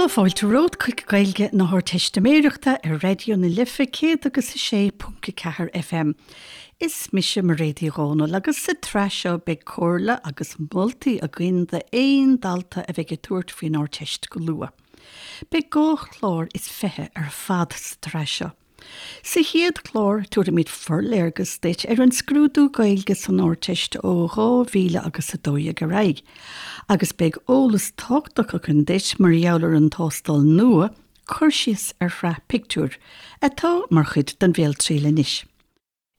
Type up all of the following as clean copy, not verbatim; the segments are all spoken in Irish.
fáilte romhat chuig Gaeilge na hArdteistiméireachta ar Raidió na Life 106.4 FM. Is mise Mairéad Uí Dhomhnaill agus sa tsraith seo beidh comhairle agus moltaí againn d'aon dalta a bheidh ag tabhairt faoin Ardteist go luath. Beidh 22 chlár ar fad sa tsraith seo. Sa chéad chlár, tabharfaimid forléargas duit ar an scrúdú Gaeilge san Ardteist ó 2000 agus 12 ar aghaidh, agus beidh eolas tábhachtach againn duit mar gheall ar an tástáil nua, cur síos ar shraith pictiúr, atá mar chuid den bhéaltriail anois.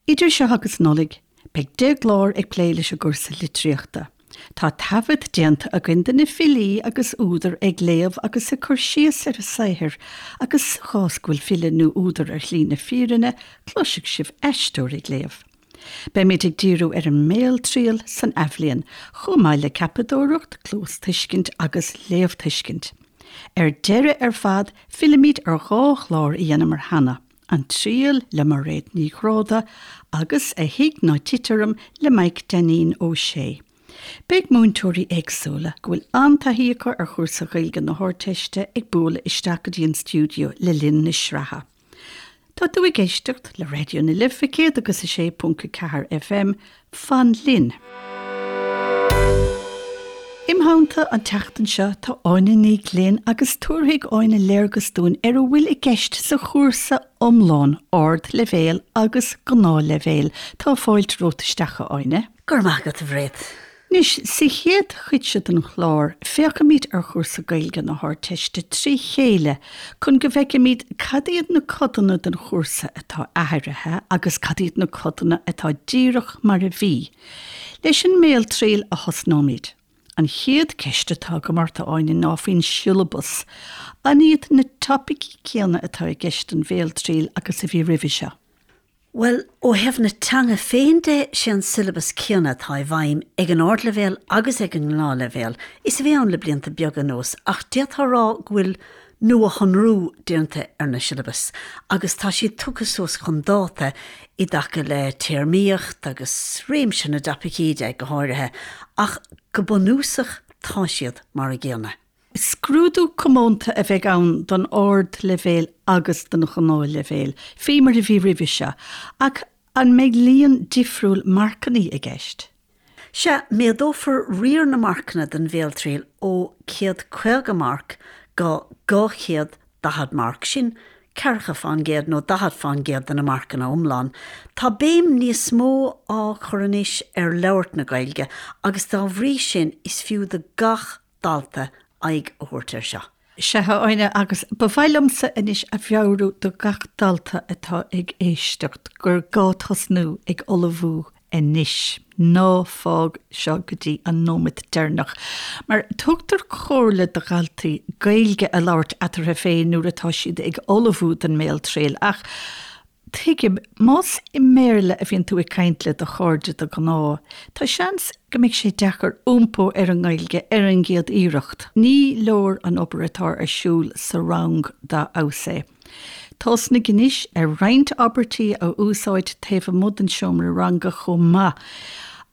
Idir seo agus Nollaig, beidh 10 gclár ag plé leis an gcúrsa litríochta. Tá taifead déanta againn de na filí agus údair ag léamh agus ag cur síos ar a saothair agus sa chás go bhfuil file nó údar ar shlí na fírinne, cloisfidh sibh aisteoir ag léamh. Beimid ag díriú ar an mbéaltriail san athbhliain, chomh maith le ceapadóireacht, cluastuiscint agus léamhthuiscint. Ar deireadh ar fad, fillfimid ar dhá chlár a dhéanamar cheana. An Triail le Mairéad Ní Ghráda agus A Thig Ná Tit Orm le Maidhc Dainín Ó Sé. Beidh múinteoirí éagsúla, go bhfuil an-taithí acu ar chúrsa Ghaeilge na hArdteiste ag bualadh isteach go dtí an stiúideo le linn na sraithe. Tá tú ag éisteacht le Raidió na Life 106.4 FM, Fan linn! Im theannta an tseachtain seo tá Áine Ní Ghlinn agus tabharfaidh Áine léargas dúinn ar a bhfuil i gceist sa chúrsa iomlán, ardleibhéal agus gnáthleibhéal. Tá fáilte romhat isteach, a Áine. Go raibh maith agat, a Mhairéad. Anois, sa chéad chuid seo den chlár, féachfaimid ar chúrsa Gaeilge na hArdteiste trí chéile chun go bhfeicfimid cad iad na codanna den chúrsa atá athraithe agus cad iad na codanna atá díreach mar a bhí. Leis an mbéaltriail a thosnóimid. An chéad ceist atá agam ort, a Áine, ná faoin siollabas. An iad na topaicí céanna atá i gceist don bhéaltriail agus a bhí roimhe seo? Bhuel, ó thaobh na teanga féin de, sé an siollabas céanna atá i bhfeidhm ag an ardleibhéal agus ag an ngnáthleibhéal is a bhí ann le blianta beaga anuas ach d'fhéadfá a rá go bhfuil nuashonrú déanta ar na siollabais agus tá siad tugtha suas chun dáta i dtaca le téarmaíocht agus réimse na dtopaicí de, go háirithe, ach go bunúsach tá siad mar a gcéanna. Scrúdú comónta a bheidh ann don ardleibhéal agus don ghnáthleibhéal, faoi mar a bhí roimhe seo, ach an mbeidh líon difriúil marcanna i gceist? Sea, méadófar riar na marcanna don bhéaltriail ó 150 marc go 240 marc, sin ceathracha fán gcéad nó 40 fán gcéad de na marcanna iomlán. Tá béim níos mó á cur anois ar labhairt na Gaeilge agus dá bhrí sin is fiú do gach dalta aghaidh a thabhairt air seo. Sea, a Áine, agus ba mhaith liomsa anois a mheabhrú do gach dalta atá ag éisteacht gur gá tosnú ag ullmhú anois. Ná fág seo go dtí an nóiméad deireanach. Mar tugtar comhairle do dhaltaí Gaeilge a labhairt eatarthu féin nuair atá siad ag ullmhú don mbéaltriail ach Tuigim, más i mBéarla a bhíonn tú ag caint le do chairde de ghnáth, tá seans go mbeidh sé deacair iompó ar an nGaeilge ar an gcéad iarracht. Ní leor an obair atá ar siúl sa rang dá fheabhas é. Tosnaigh anois ar roinnt abairtí a úsáid taobh amuigh den seomra ranga chomh maith,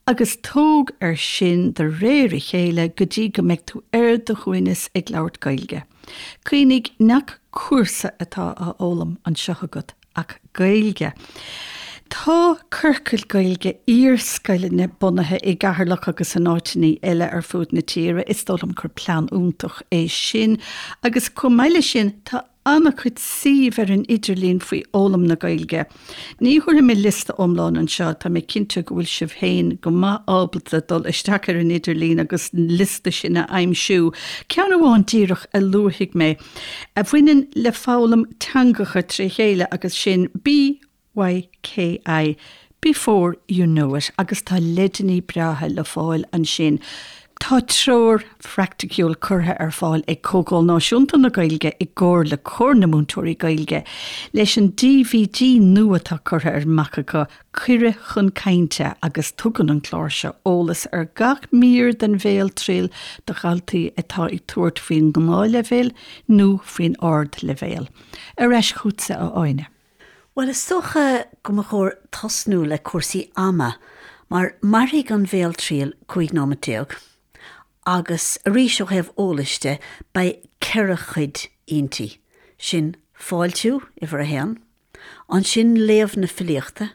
agus tóg air sin de réir a chéile go dtí go mbeidh tú ar do shuaimhneas ag labhairt Gaeilge. Cuimhnigh nach cúrsa atá á fhoghlaim anseo agat ach Gaeilge. Tá ciorcail Gaeilge iarscoileanna bunaithe i gCeatharlach agus in áiteanna eile ar fud na tíre. Is dóigh liom gur plean iontach é sin. Agus chomh maith leis sin, tá an-chuid suímh ar an idirlíon faoi fhoghlaim na Gaeilge. Ní thabharfaidh mé liosta iomlán anseo, tá mé cinnte go bhfuil sibh féin go maith ábalta dul isteach ar an idirlíon agus an liosta sin a aimsiú. Ceann amháin díreach a luafaidh mé, a bhaineann le foghlaim teangacha tré chéile agus sin BYKI, Before You Know It, agus tá leideanna breátha le fáil ansin. Tá treoir phraiticiúil curtha ar fáil ag Comhdháil Náisiúnta na Gaeilge i gcomhar le Comhar na Múinteoirí Gaeilge leis an DVD nua atá curtha amach acu, Cuireadh chun Cainte, agus tugann an clár seo eolas ar gach mír den bhéaltriail do dhaltaí atá ag tabhairt faoin ngnáthleibhéal nó faoin ardleibhéal. Ar ais chugatsa, a Áine. Bhuel, is dócha go mba chóir tosnú le cúrsaí ama, mar mairfidh an bhéaltriail 15 nóimeat, Agus arís ó thaobh eolais de, beidh 4 chuid inti. Sin fáiltiú, uimhir a haon, ansin léamh na filíochta,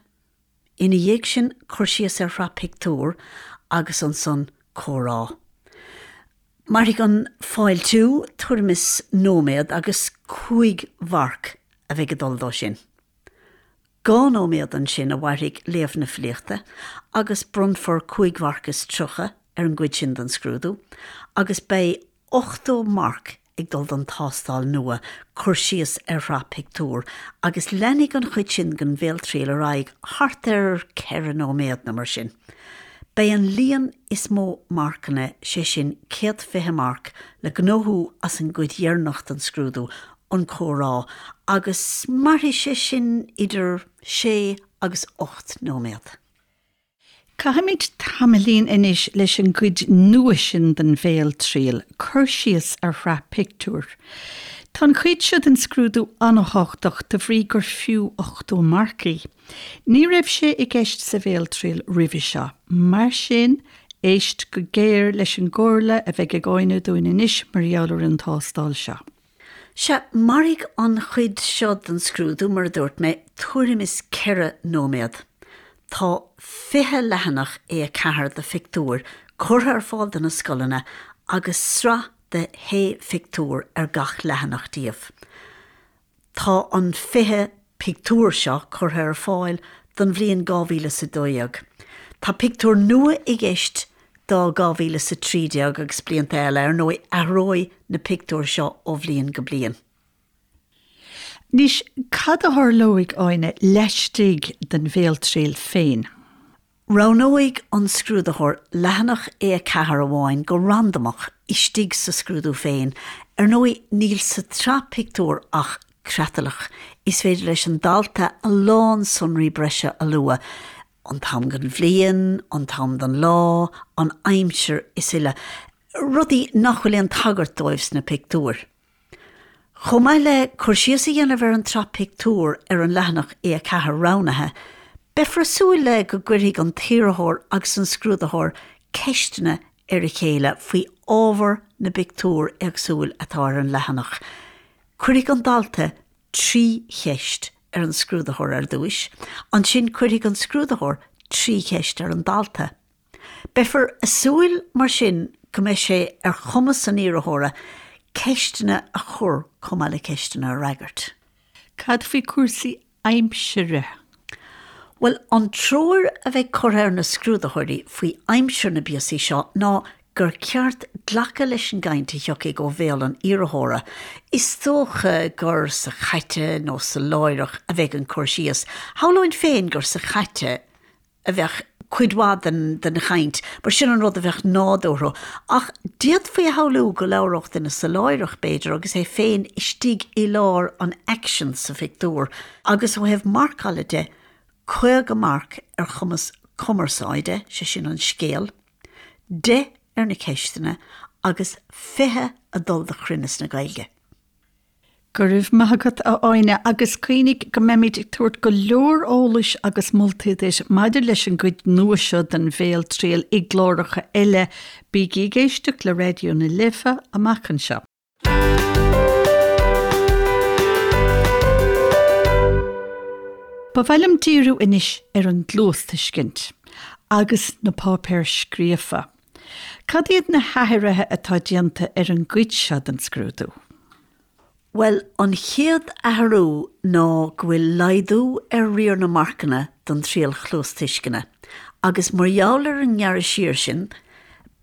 ina dhiaidh sin cur síos ar shraith pictiúr agus ansan comhrá. Mairfidh an fáiltiú tuairim is nóiméad agus 5 mharc a bheidh ag dul dó sin. 2 nóiméad ansin a mhairfidh léamh na filíochta agus bronnfar 5 mharc is 30 ar an gcuid sin den scrúdú agus beidh 80 marc ag dul don tástáil nua, cur síos ar shraith pictiúr, agus leanfaidh an chuid sin den bhéaltriail ar aghaidh thart ar 4 nóiméad nó mar sin. Beidh an líon is mó marcanna, sé sin 120 marc, le gnóthú as an gcuid dheireanach den scrúdú, an comhrá, agus mairfidh sé sin idir sé agus 8 nóiméad. Caithfimid tamaillín anois leis an gcuid nua sin den bhéaltriail, cur síos ar shraith pictiúr. Tá an chuid seo den scrúdú an-thábhachtach de bhrí gur fiú 80 marc í. Ní raibh sé i gceist sa bhéaltriail roimhe seo. Mar sin, éist go géar leis an gcomhairle a bheidh ag Áine dúinn anois mar gheall ar an tástáil seo. Sea, mairfidh an chuid seo den scrúdú, mar a dúirt mé, tuairim is 4 nóiméad. Tá 20 leathanach A4 de phictiúir curtha ar fáil do na scoileanna agus sraith de shé phictiúr ar gach leathanach díobh. Tá an 20 pictiúr seo curtha ar fáil don bhliain 2012. Tá pictiúir nua i gceist do 2013 agus blianta eile. Ar ndóigh, athróidh na pictiúir seo ó bhliain go bliain. Anois, cad a tharlóidh, Áine, laistigh den bhéaltriail féin? Roghnóidh an scrúdaitheoir leathanach A4 amháin go randamach istigh sa scrúdú féin. Ar ndóigh, níl sa tsraith pictiúr ach creatlach. Is féidir leis an dalta a lán sonraí breise a lua, an t-am den bhliain, an t-am den lá, an aimsir is uile, rudaí nach bhfuil aon tagairt dóibh sna pictiúir. Chomh maith le cur síos a dhéanamh ar an tsraith pictiúr ar an leathanach A4 roghnaithe, beifear ag súil le go gcuirfidh an t-iarrthóir agus an scrúdaitheoir ceisteanna ar a chéile faoi ábhar na bpictiúr éagsúil atá ar an leathanach. Cuirfidh an dalta 3 cheist ar an scrúdaitheoir ar dtúis, ansin cuirfidh an scrúdaitheoir 3 cheist ar an dalta. Beifear ag súil mar sin go mbeidh sé ar chumas an iarrthóra ceisteanna a chur chomh maith le ceisteanna a fhreagairt. Cad faoi chúrsaí aimsire? Bhuel, an treoir a bheidh curtha ar na scrúdaitheoirí faoi aimsir na bpíosaí seo ná gur ceart glacadh leis an gcaint a thiocfaidh ó bhéal an iarrthóra. Is dócha gur sa chaite nó sa láithreach a bheidh an cur síos. Shamhlóinn féin gur sa chaite a bheadh cuid mhaith den den chaint, mar sin an rud a bheadh nádúrtha. Ach d'fhéadfaí a shamhlú go labhródh duine sa láithreach, b'fhéidir, agus é féin istigh i lár an aicsin sa phictiúr. Agus ó thaobh marcála de, 50 marc ar chumas cumarsáide, sé sin an scéal, 10 ar na ceisteanna agus 20 ag dul do chruinneas na Gaeilge. Go raibh maith agat, a Áine, agus cuimhnigh go mbeimid ag tabhairt go leor eolais agus moltaí duit maidir leis an gcuid nua seo den bhéaltriail i gcláracha eile. Bígí ag éisteacht le Raidió na Life amach anseo. Ba mhaith liom díriú anois ar an gcluastuiscint agus na páipéir scríofa. Cad iad na hathruithe atá déanta ar an gcuid seo den scrúdú? Bhuel, an chéad athrú ná go bhfuil laghdú ar riar na marcanna don triail chluastuisceana agus mar gheall ar an ngearradh siar sin,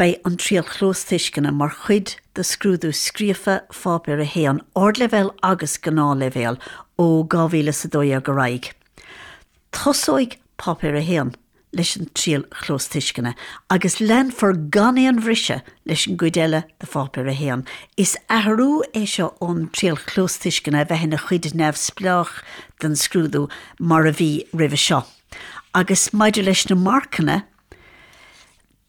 beidh an triail chluastuisceana mar chuid de scrúdú scríofa Pháipéar 1, Ardleibhéal agus Gnáthleibhéal, ó 2012 ar aghaidh. Tosóidh Páipéar 1 leis an triail chluastuisceana agus leanfar gan aon bhriseadh leis an gcuid eile de Pháipéar 1. Is athrú é seo ón triail chluastuisceana a bheith ina chuid neamhspleách den scrúdú mar a bhí roimhe seo. Agus maidir leis na marcanna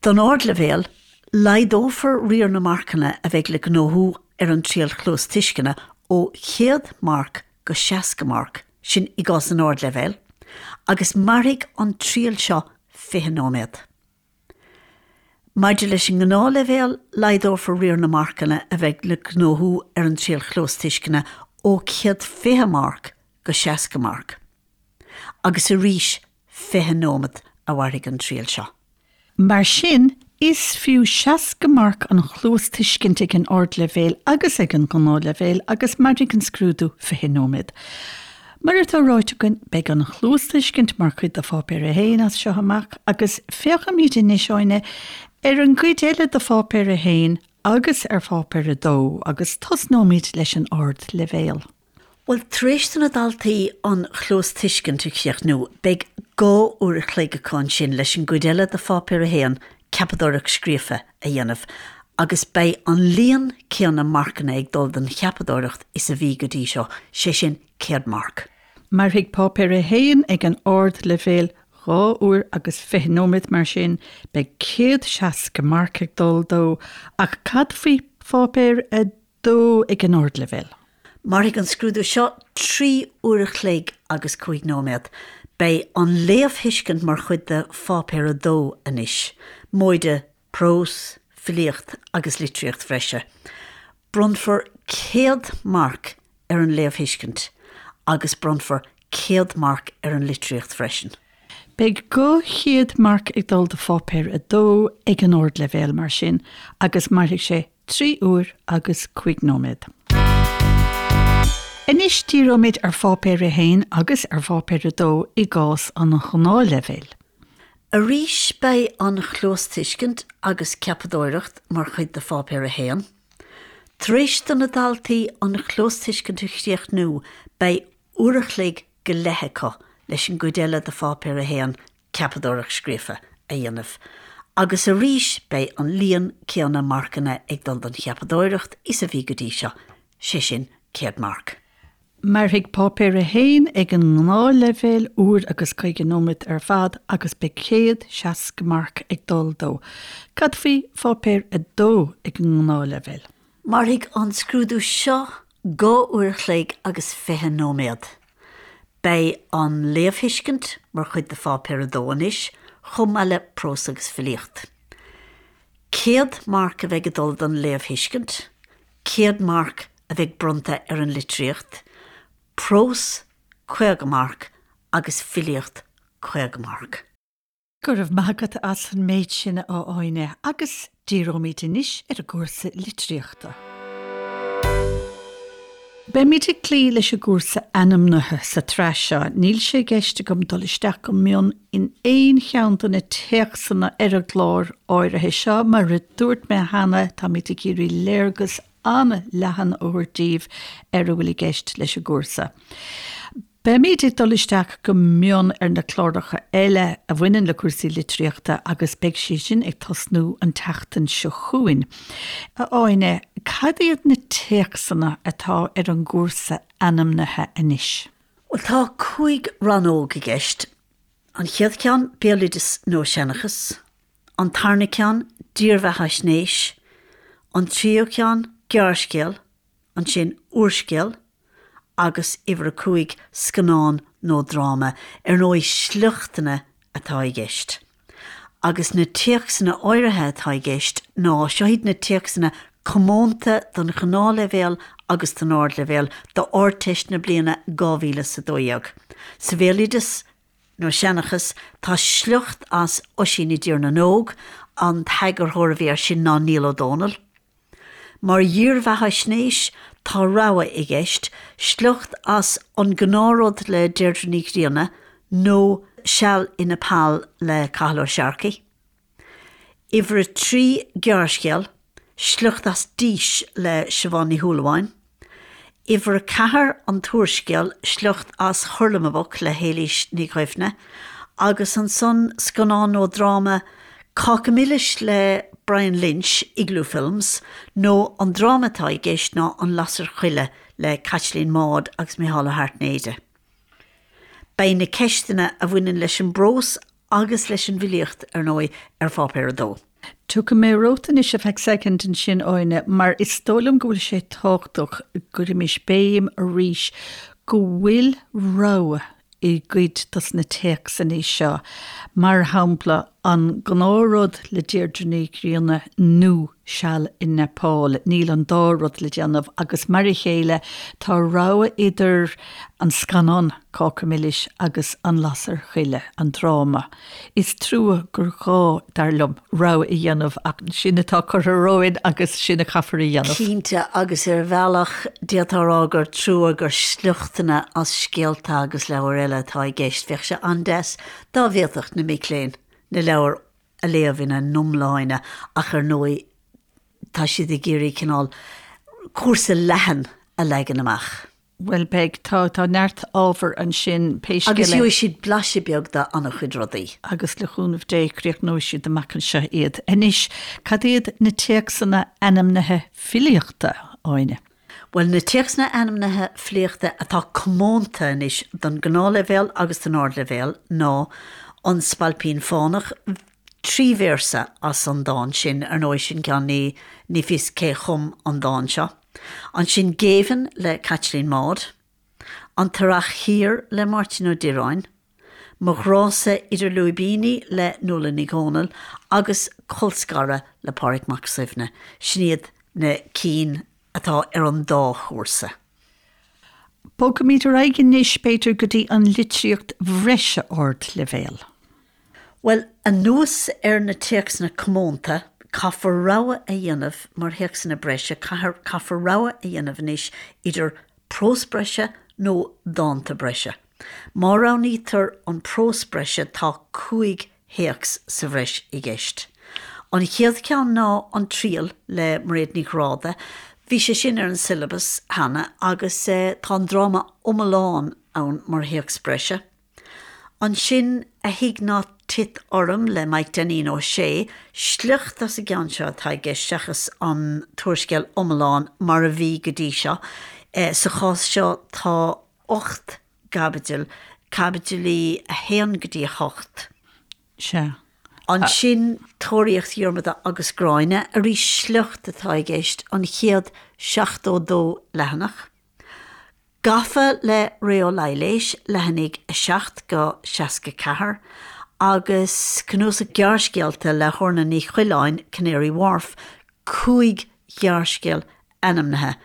don ardleibhéal, laghdófar riar na marcanna a bheidh le gnóthú ar an triail chluastuisceana ó 100 marc go 60 marc, sin i gcás an ardleibhéil, agus mairfidh an triail seo 20 nóiméad. Maidir leis an ngnáthleibhéal, laghdófar riar na marcanna a bheidh le gnóthú ar an triail chluastuisceana ó 120 marc go 60 marc. Agus arís 20 nóiméad a mhairfidh an triail seo. Mar sin, is fiú 60 marc an chluastuiscint ag an ardleibhéal agus ag an ngnáthleibhéal agus mairfidh an scrúdú 20 nóiméad. Mar atá ráite againn, beidh an chluastuiscint mar chuid de Pháipéar 1 as seo amach agus féachfaimid anois, Áine, ar an gcuid eile de Pháipéar 1 agus ar Pháipéar 2 agus tosnóimid leis an ardleibhéal. Bhuel, tar éis do na daltaí an chluastuiscint a chríochnú, beidh 2 uair a chloig acu ansin leis an gcuid eile de Pháipéar 1, Ceapadóireacht Scríofa, a dhéanamh, agus beidh an líon céanna marcanna ag dul don cheapadóireacht is a bhí go dtí seo, sé sin 100 marc. Mairfidh Páipéar 1 ag an ardleibhéal 2 uair agus 20 nóiméad, mar sin beidh 160 marc ag dul dó, ach cad faoi Pháipéar 2 ag an ardleibhéal? Mairfidh an scrúdú seo 3 uair a chloig agus 5 nóiméad. Beidh an léamhthuiscint mar chuid de Pháipéar 2 anois, móide prós, filíocht agus litríocht bhreise. Bronnfar 100 marc ar an léamhthuiscint agus bronnfar 100 marc ar an litríocht freisin. Beidh 200 marc ag dul do Pháipéar 2 ag an ardleibhéal mar sin agus mairfidh sé 3 uair agus 5 nóiméad. Anois díreoimid ar Pháipéar 1 agus ar Pháipéar 2 i gcás an ghnáthleibhéil. Arís beidh an chluastuiscint agus ceapadóireacht mar chuid de Pháipéar 1. Tar éis do na daltaí an chluastuiscint a chríochnú beidh uair a chloig go leith acu leis an gcuid eile de Pháipéar 1, ceapadóireacht scríofa, a dhéanamh agus arís beidh an líon céanna marcanna ag dul don cheapadóireacht is a bhí go dtí seo, sé sin 100 marc. Mairfidh Páipéar 1 ag an ngnáthleibhéal uair agus 50 nóiméad ar fad agus beidh 160 marc ag dul dó. Cad faoi Pháipéar 2 ag an ngnáthleibhéal? Mairfidh an scrúdú seo 2 uair a chloig agus 20 nóiméad. Beidh an léamhthuiscint mar chuid de Pháipéar 2 anois, chomh maith le prós agus filíocht. 100 marc a bheidh ag dul don léamhthuiscint, 100 marc a bheidh bronnta ar an litríocht, prós 50 marc agus filíocht 50 marc. Go raibh maith agat as an méid sin, a Áine, agus díreoimid anois ar an gcúrsa litríochta. Beimid ag cloí leis an gcúrsa ainmnithe sa tsraith seo. Níl sé i gceist agam dul isteach go mion in aon cheann de na téacsanna ar an gclár áirithe seo. Mar a dúirt mé cheana, táimid ag iarraidh léargas an-leathan a thabhairt daoibh ar a bhfuil i gceist leis an gcúrsa. Beimid ag dul isteach go mion ar na cláracha eile a bhaineann le cúrsaí litríochta agus beidh siad sin ag tosnú an tseachtain seo chugainn. A Áine, cad iad na téacsanna atá ar an gcúrsa ainmnithe anois? Bhuel, tá 5 rannóg i gceist. An chéad cheann, béaloideas nó seanchas. An tarna ceann, dírbheathaisnéis. An tríú ceann, gearrscéal. Ansin úrscéal. agus uimhir a 5, scannán nó dráma, ar ndóigh sliochtanna atá i gceist. Agus na téacsanna áirithe atá i gceist ná, seo iad na téacsanna comónta don ghnáthleibhéal agus don ardleibhéal d'Ardteist na bliana 2012. Sa bhéaloideas nó seanchas, tá sliocht as Oisín i dTír na nÓg, an t-eagarthóir a bhí air sin ná Niall Ó Dónaill. Mar dhírbheathaisnéis, tá rogha i gceist, sliocht as An Gnáthrud le Deirdre Ní Ghrianna nó Seal i Nepal le Cathal Ó Searcaigh. Uimhir a 3, gearrscéal, sliocht as Dís le Siobhán Ní Shúilleabháin. Uimhir a 4, an t-úrscéal, sliocht as Hurlamaboc le hÉilís Ní Dhuibhne, agus ansan scannán nó dráma, Cáca Milis le Brian Lynch, Igloo Films, nó an dráma atá i gceist ná An Lasair Choille le Caitlín Maude agus Mícheál Ó hAirtnéide. Beidh na ceisteanna a bhaineann leis an bprós agus leis an bhfilíocht, ar ndóigh, ar Pháipéar 2. Tiocfaidh mé romhat anois ar feadh soicind ansin, Áine, mar is dóigh liom go bhfuil sé tábhachtach go gcuirimis béim arís go bhfuil rogha i gcuid dos na téacsanna seo. Mar shampla. An Gnáthrud le Deirdre Ní Ghrianna nó Seal i Neipeal. Níl an dá rud le déanamh agus mar a chéile tá rogha idir an scannán Cáca Milis agus An Lasair Choille, an dráma. Is trua gur gá, dar liom, rogha a dhéanamh ach sin atá curtha romhainn agus sin a chaithfear a dhéanamh. Cinnte, agus ar bhealach d'fhéadfá a rá gur trua gur sliochtanna as scéalta agus leabhair eile atá i gceist. Bheadh sé an-deas dá bhféadfadh na mic léinn na leabhair a léamh ina n-iomláine ach ar ndóigh tá siad ag iarraidh cineál cúrsa leathan a leagan amach. Bhuel, beidh. Tá, tá neart ábhar ansin, pé scéal é. Agus gheobhaidh siad blaiseadh beag d'an-chuid rudaí. Agus le cúnamh Dé, críochnóidh siad amach anseo iad. Anois, cad iad na téacsanna ainmnithe filíochta, Áine? Bhuel, na téacsanna ainmnithe filíochta atá comónta anois don ghnáthleibhéal agus don ardleibhéal ná An Spailpín Fánach, 3 véarsa as an dán sin, ar ndóigh sin ceann ní, ní fios cé chum an dán seo. Ansin Géibheann le Caitlín Maude, An tEarrach Thiar le Máirtín Ó Direáin, Mo Ghrá-sa Idir Lúibíní le Nuala Ní Dhomhnaill agus Colscaradh le Pádraig Mac Suibhne. Sin iad na cinn atá ar an dá chúrsa. Bogfaimid ar aghaidh anois, b'fhéidir, go dtí an litríocht bhreise ardleibhéil. Bhuel, anuas ar na téacsanna comónta, caithfear rogha a dhéanamh mar théacsanna breise, caithfear rogha a dhéanamh anois idir prós breise nó dánta breise. Má roghnaítear an prós breise tá 5 théacs sa bhreis i gceist. An chéad cheann ná An Triail le Mairéad Ní Ghráda. Bhí sé sin ar an siollabas cheana agus tá an dráma iomlán ann mar théacs breise. Ansin, A Thig Ná Tit Orm le Maidhc Dainín Ó Sé, sliocht as an gceann seo atá i gceist seachas an t-úrscéal iomlán mar a bhí go dtí seo. Sa chás seo tá 8 gcaibidil, caibidilí 1 go dtí 8. Sea. Ansin, Tóraíocht Dhiarmada agus Gráinne, arís sliocht atá i gceist, an chéad 72 leathanach. Gafa le Ré Ó Laighléis, leathanaigh 7-64, agus cnuasach gearrscéalta le hOrna Ní Choileáin, Canary Wharf, 5 ghearrscéal ainmnithe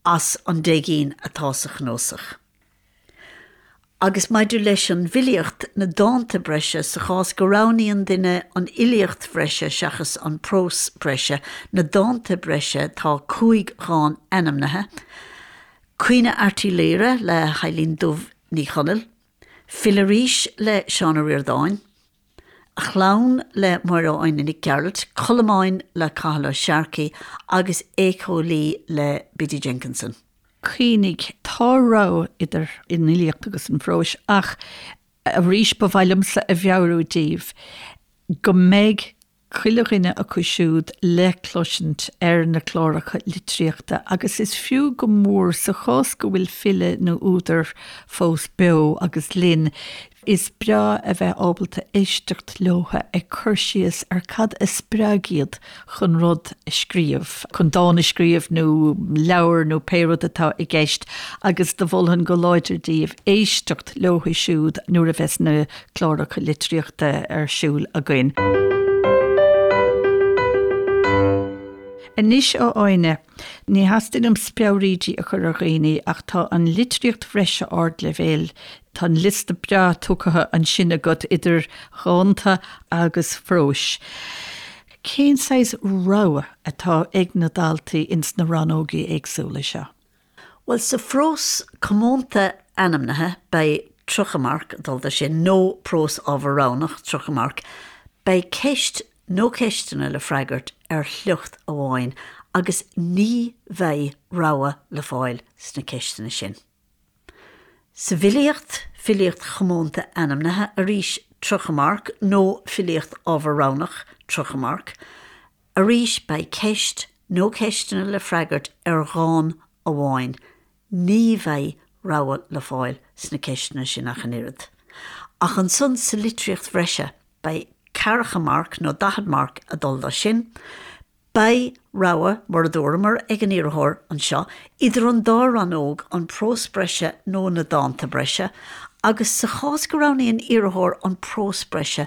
as an 10 gcinn atá sa chnuasach. Agus maidir leis an bhfilíocht, na dánta breise, sa chás go roghnaíonn duine an fhilíocht bhreise seachas an prós breise, na dánta breise, tá 5 dhán ainmnithe, Caoineadh Airt Uí Laoghaire le hEibhlín Dubh Ní Chonaill, Fill Arís le Seán Ó Ríordáin, A Chlann le Máire Áine Nic Gearailt, Colmáin le Cathal Ó Searcaigh agus Éiceolaí le Biddy Jenkinson. Cuimhnigh, tá rogha idir an fhilíocht agus an phróis ach arís ba mhaith liomsa a mheabhrú daoibh go mbeidh chuile dhuine acu siúd le cloisint ar na cláracha litríochta agus is fiú go mór sa chás go bhfuil file nó údar fós beo agus linn, Is breá a bheith ábalta éisteacht leotha ag cur síos ar cad a spreag iad chun rud a scríobh, chun dán a scríobh nó leabhar nó pé rud atá i gceist agus do mholfainn go láidir daoibh éisteacht leotha siúd nuair a bheas na cláracha litríochta ar siúl againn. Anois a Áine, ní theastaíonn uaim speabhraídí a chur ar dhaoine ach tá an litríocht bhreise ardleibhéil, tá an liosta breá tugtha ansin agat idir dhánta agus phróis. Cén saghas rogha atá ag na daltaí ins na rannógaí éagsúla seo? Bhuel, sa phrós comónta ainmnithe, beidh 30 marc ag dul do sin, nó prós ábhar roghnach, 30 marc. Beidh ceist nó ceisteanna le freagairt ar shliocht amháin agus ní bheidh rogha le fáil sna ceisteanna sin. Sa bhfilíocht, filíocht chomónta ainmnithe, arís 30 marc, nó filíocht ábhar roghnach, 30 marc. Arís beidh ceist nó ceisteanna le freagairt ar dhán amháin. Ní bheidh rogha le fáil sna ceisteanna sin ach an oiread. Ach ansan sa litríocht bhreise beidh ceathracha marc nó 40 marc ag dul do sin. Beidh rogha, mar a dúramar, ag an iarrthóir anseo idir an dá rannóg, an prós breise nó na dánta breise, agus sa chás go roghnaíonn iarrthóir an prós breise.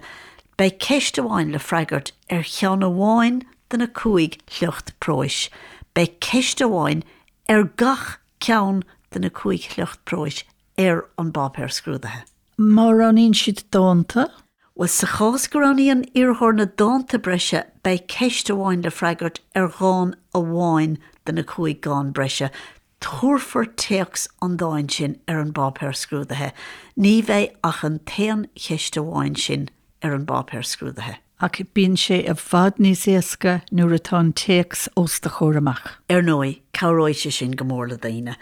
Beidh ceist amháin le freagairt ar cheann amháin de na 5 shliocht próis. Beidh ceist amháin ar gach ceann de na 5 shliocht próis ar an bpáipéar scrúdaithe. Má roghnaíonn siad dánta? Bhuel, sa chás go roghnaíonn iarrthóir na dánta breise, beidh ceist amháin le freagairt ar dhán amháin de na 5 dhán breise. Tabharfar téacs an dáin sin ar an bpáipéar scrúdaithe. Ní bheidh ach an t-aon cheist amháin sin ar an bpáipéar scrúdaithe. Ach bíonn sé i bhfad níos éasca nuair atá an téacs os do chomhair amach. Ar ndóigh, cabhróidh sé sin go mór le daoine.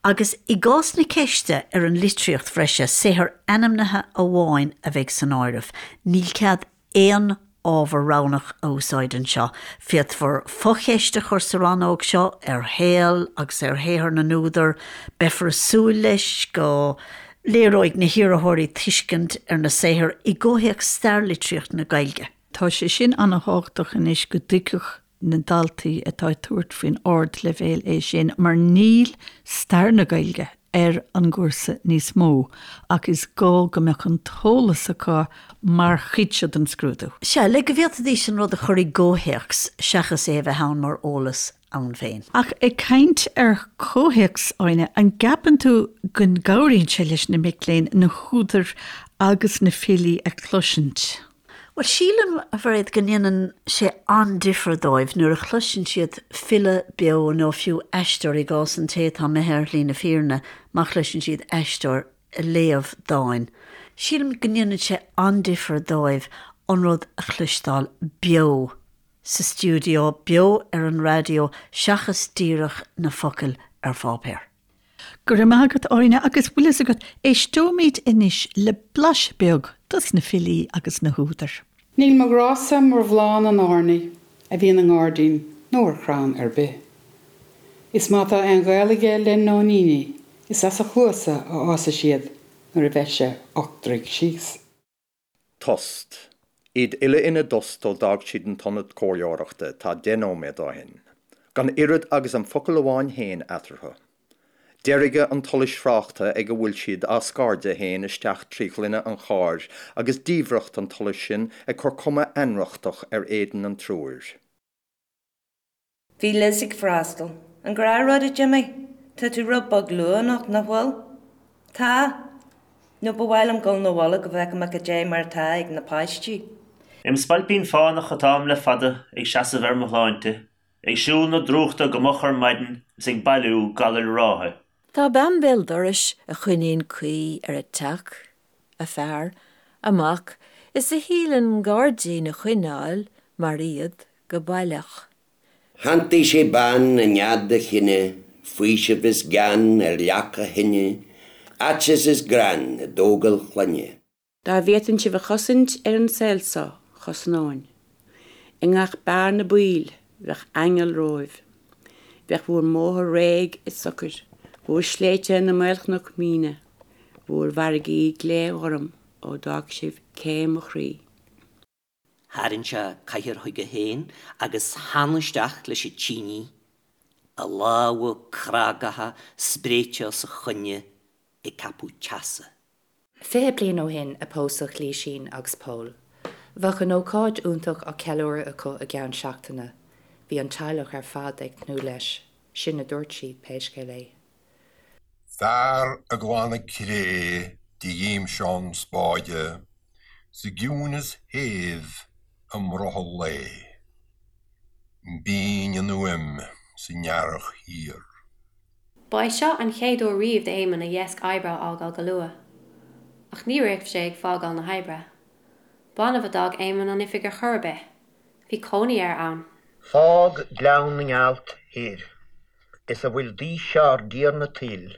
Agus i gcás na ceiste ar an litríocht bhreise, saothar ainmnithe amháin a bheidh san áireamh. Níl cead aon ábhar roghnach a úsáid anseo. Féadfar focheist a chur sa rannóg seo ar shaol agus ar shaothar na n-údar. Beifear ag súil leis go léireoidh na hiarrthóirí tuiscint ar na saothair i gcomhthéacs stair litríocht na Gaeilge. Tá sé sin an-thábhachtach anois go dtuigfeadh na daltaí atá ag tabhairt faoin ardleibhéal é sin mar níl stair na Gaeilge ar an gcúrsa níos mó ach is gá go mbeadh an t-eolas acu mar chuid seo den scrúdú. Sea, le go bhféadfaidís an rud a chur i gcomhthéacs seachas é a bheith ann mar eolas ann féin. Ach ag caint ar chomhthéacs, Áine, an gceapann tú go gcabhraíonn sé leis na mic léinn na húdair agus na filí a chloisint? Bhuel, sílim, a Mhairéad, go ndéanann sé an-difear dóibh nuair a chloiseann siad file beo nó fiú aisteoir, i gcás an té atá imithe ar shlí na fírinne, má chloiseann siad aisteoir ag léamh dáin. Sílim go ndéanann sé an-difear dóibh an rud a chloisteáil beo. sa stiúideo, beo ar an raidió seachas díreach na focail ar pháipéar. Go raibh maith agat, Áine, agus bhfuil fhios agat, éisteoimid anois le blaiseadh beag dos na filí agus na húdair. Níl mo ghrá-sa mar bhláth na n-airní a bhíonn i ngairdín nó ar chrann ar bith. Is má tá aon ghaol aige le nóiníní is as a chluasa a fhásfaidh siad nuair a bheidh sé ochtraigh síos. Tost. Iad uile ina dtost ó d'fhág siad an t-ionad comhairleoireachta tá 10 nóiméad ó shin. Gan oiread agus an focal amháin féin eatarthu. Deirge an tsolais thráchta ag a bhfuil siad á scairdeadh féin isteach trí ghloine an chairr agus diamhracht an tsolais sin ag cur cuma ainriochtach ar éadan an triúir. Bhí Liz ag freastal. An gnáthrud, a Jimmy? Tá tú rud beag luath anocht, nach bhfuil? Tá. Nó ba mhaith liom dul 'na bhaile go bhfeice mé cad é mar atá ag na páistí. Im spailpín fánach atáim le fada ag seasamh ar mo shláinte, ag siúl na drúchta go moch ar maidin is ag bailiú galair ráithe. Tá bean béal dorais a choinníonn caoi ar a teach, a fear, a mac is a shíleann gairdín a choinneáil mar iad go baileach. Shantaigh sé bean i nead a chine, faoiseamh is gean ar leac a thine, aiteas is greann i dtógáil clainne. Dá bhféadfainn sibh a chosaint ar an saol so, chosnóinn. I ngach bearna baoil, bheadh aingeal romhaibh. Bheadh bhúr mbóthar réidh is socair, bhúr sléibhte ina maolchnoic mhíne, bhúr bhfarraigí glé-ghorm ó d'fhág sibh cé mo chroí. Tharraing sé cathaoir chuige féin agus theann isteach leis an tínidh, a lámha crágacha spréite os a choinne ag ceapadh teasa. 20 bliain ó shin a pósadh Lísín agus Pól. Bheadh an ócáid iontach á ceiliúradh acu i gceann seachtaine. Bhí an teaghlach ar fad ag tnúth leis. Sin a dúirt siad, pé scéal é. Fear ag glanadh cré de ghimseán spáide sa gciúineas shéimh i mbrothall lae. B'fhínn an fhuaim san earrach thiar. Ba é seo an chéad uair riamh d'Éamonn a dheasc oibre a fhágáil go luath. Ach ní raibh sé ag fágáil na hoibre. B'annamh a d'fhág Éamonn an oifig ar chor ar bith. Bhí cónaí air ann. Fág Gleann na nGealt thoir is a bhfuil d'aois ár dTiarna tuil,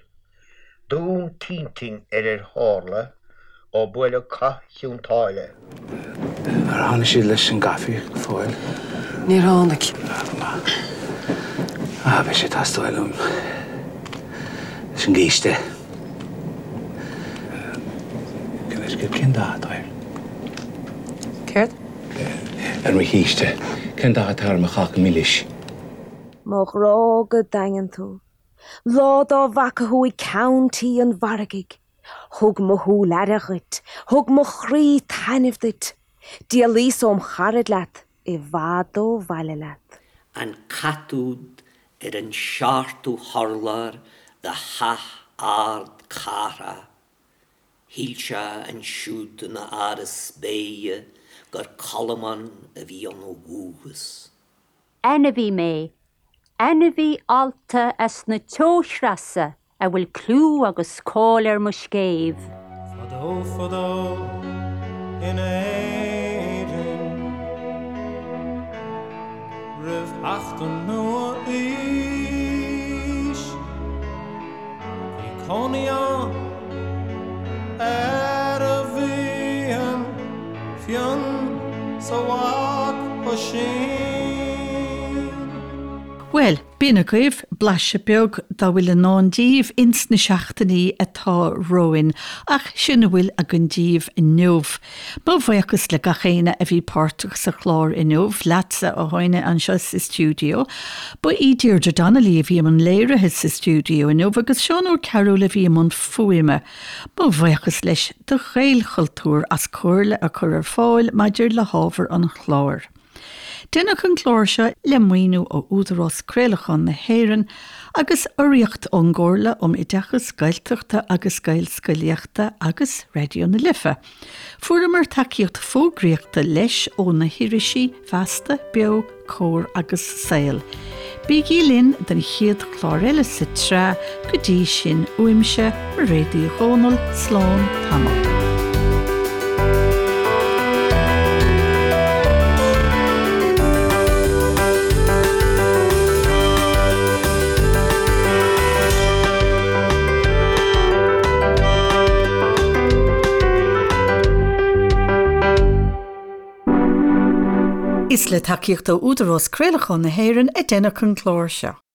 Dún t'intinn ar ar tharla ó buaileadh cath Chionn tSáile. Ar tháinig siad leis an gcaife go fóill? Níor tháinig. Ah, go maith. Ah, beidh sé ag teastáil uaim leis an gcíste. Cén dath atá air? Céard? Ar mo chíste. Cén dath atá ar mo cháca milis? Mo ghrá go daingean tú. Lá dá bhfaca thú ag ceann tí an mhargaidh, thug mo shúil aire dhuit, thug mo chroí taitneamh duit. D'éalaíos óm charaid leat, i bhfad ó bhaile leat. An cat úd ar an seachtú hurlár de theach ard cathrach, shíl sé ansiúd ina áras béithe gur Colmán a bhí ann ó dhúchas. Ainmhí mé, ainmhí allta as na teochreasa a bhfuil clú agus cáil ar mo scéimh. Fadó fadó in Éirinn roimh theacht an nua-aois bhí cónaí ann fhear a bhí an fionn 's a mhac Oisín. Bhuel, b'in agaibh blaiseadh beag dá bhfuil i ndán díbh ins na seachtainí atá romhainn, ach sin a bhfuil againn díbh inniu. Mo bhuíochas le gach éinne a bhí páirteach sa chlár inniu, leatsa, a Áine, anseo sa stiúideo. Ba í Deirdre Donnelly a bhí i mbun léirithe sa stiúideo inniu agus Seán Ó Cearúil a bhí i mbun fuaime. Mo bhuíochas leis do Ghaelchultúr as comhairle a chur ar fáil maidir le hábhar an chláir. Deineadh an clár seo le maoiniú ó Údarás Craolacháin na hÉireann agus urraíocht ón gComhairle um Oideachas Gaeltachta agus Gaelscolaíochta agus Raidió na Life. Fuaireamar tacaíocht fógraíochta leis ó na hirisí Feasta, Beo, Comhar agus Saol. Bígí linn don chéad chlár eile sa tsraith, go dtí sin uaimse, Mairéad Uí Dhomhnaill, slán tamall. Is le tacaíocht ó Údarás Craolacháin na hÉireann a deineadh an clár seo.